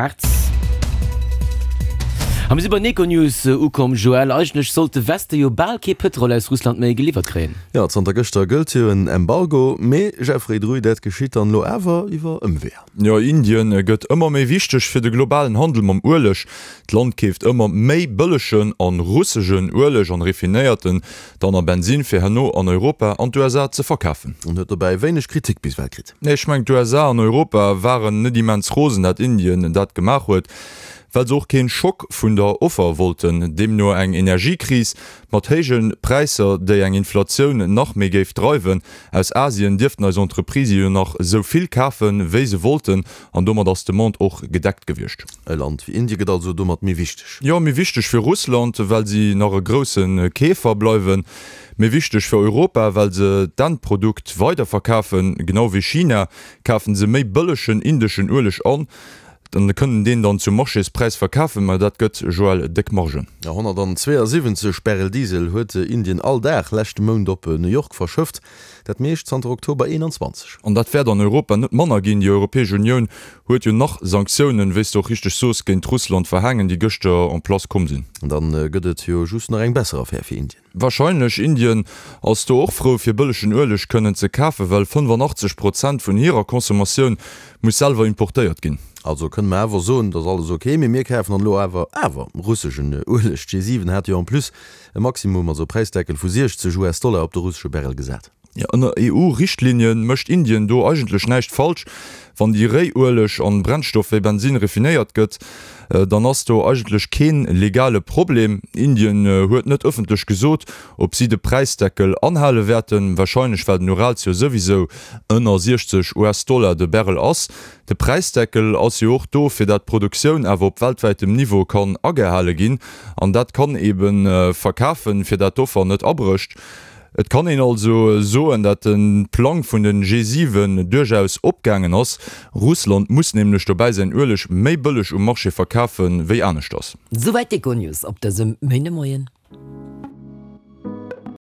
März. A mir si bei den Econews ukomm. Joël, eigentlech sollt de Weste jo bal kee Pëtrol aus Russland méi geliwwert kréien. Jo, zanter gëschter gëllt jo en Embargo, mee Jeffrey Druy, dat geschitt dann elo awer iwwer Ëmweeër. Jo, Indien gëtt ëmmer méi wichteg fir de globalen Handel mam Ueleg. D'Land keeft ëmmer méi bëllegen an russegen Ueleg an raffinéiert en dann a Bensin fir herno an Europa an d'USA ze verkafen. An huet dobäi wéineg Kritik bis ewell kritt. Nee, ech mengen d'USA an Europa waren net immens rosen dat Indien dat gemaach huet, well se och keen Schock vun der Offer wollten, deemno eng Energiekris mat héije Präisser déi eng Inflatioun nach méi géif dreiwen. Aus Asien dierften eis Entreprisë jo nach esou vill kafen wéi se wollten an domat ass d'Demande och gedeckt gewiescht. E Land wéi Indie gëtt also domat méi wichteg. Jo, méi wichteg fir Russland, well si nach e grousse Keefer bleiwen. Méi wichteg fir Europa, well se d'Endprodukt weiderverkafen. Genau wéi China kafen se méi bëllegen indeschen Ueleg an an kënnen deen dann zum Marchéspräis verkafen. Mä dat gëtt, Joël, déck Margen. 172 Barrel Diesel huet Indien all Dag leschte Mount op New York verschëfft, dat meescht zanter Oktober 21. An dat wäert an Europa net manner ginn. Déi Europäesch Unioun huet jo nach Sanktiounen, wéi s de och richteg soos, géint Russland verhaangen, déi gëschter en place komm sinn. Dann gëtt et jo just nach eng besser Affär fir Indien. Wahrscheinlech. Indien ass do och frou fir bëllegen Ueleg kënnen ze kafen, well 85 Prozent vun hirer Consommatioun muss selwer importéiert ginn. Also kënne mer awer soen, et ass alles ok, mee mir kafen dann elo awer awer russeschen Ueleg. D'G7 hat jo en plus e Maximum, also e Präisdeckel vu 60 US-Dollar op de russesche Barrel gesat. Jo, ënner EU-Richtlinien mécht Indien do eigentlech näischt falsch. Wann déi Réiueleg an Brennstoff wéi Bensin refinéiert gëtt, dann ass do eigentlech keen legale Problem. Indien huet net ëffentlech gesot, ob si de Präisdeckel anhale wäerten, wahrscheinlech well den Urals jo souwisou ënner 60 US-Dollar de Barrel ass. De Präisdeckel ass jo och do, fir dat d'Produktioun awer op weltwäitem Niveau kann agehale ginn an dat kann eben verkafen, fir dat d'Offer net abrécht. Et kann een also soen, dat de Plang vun den G7 duerchaus opgaangen ass. Russland muss nämlech dobäi säin Ueleg méi bëlleg um Marché verkafe wéi aneschters. Souwäit d'Econews op dësem Méindemoien.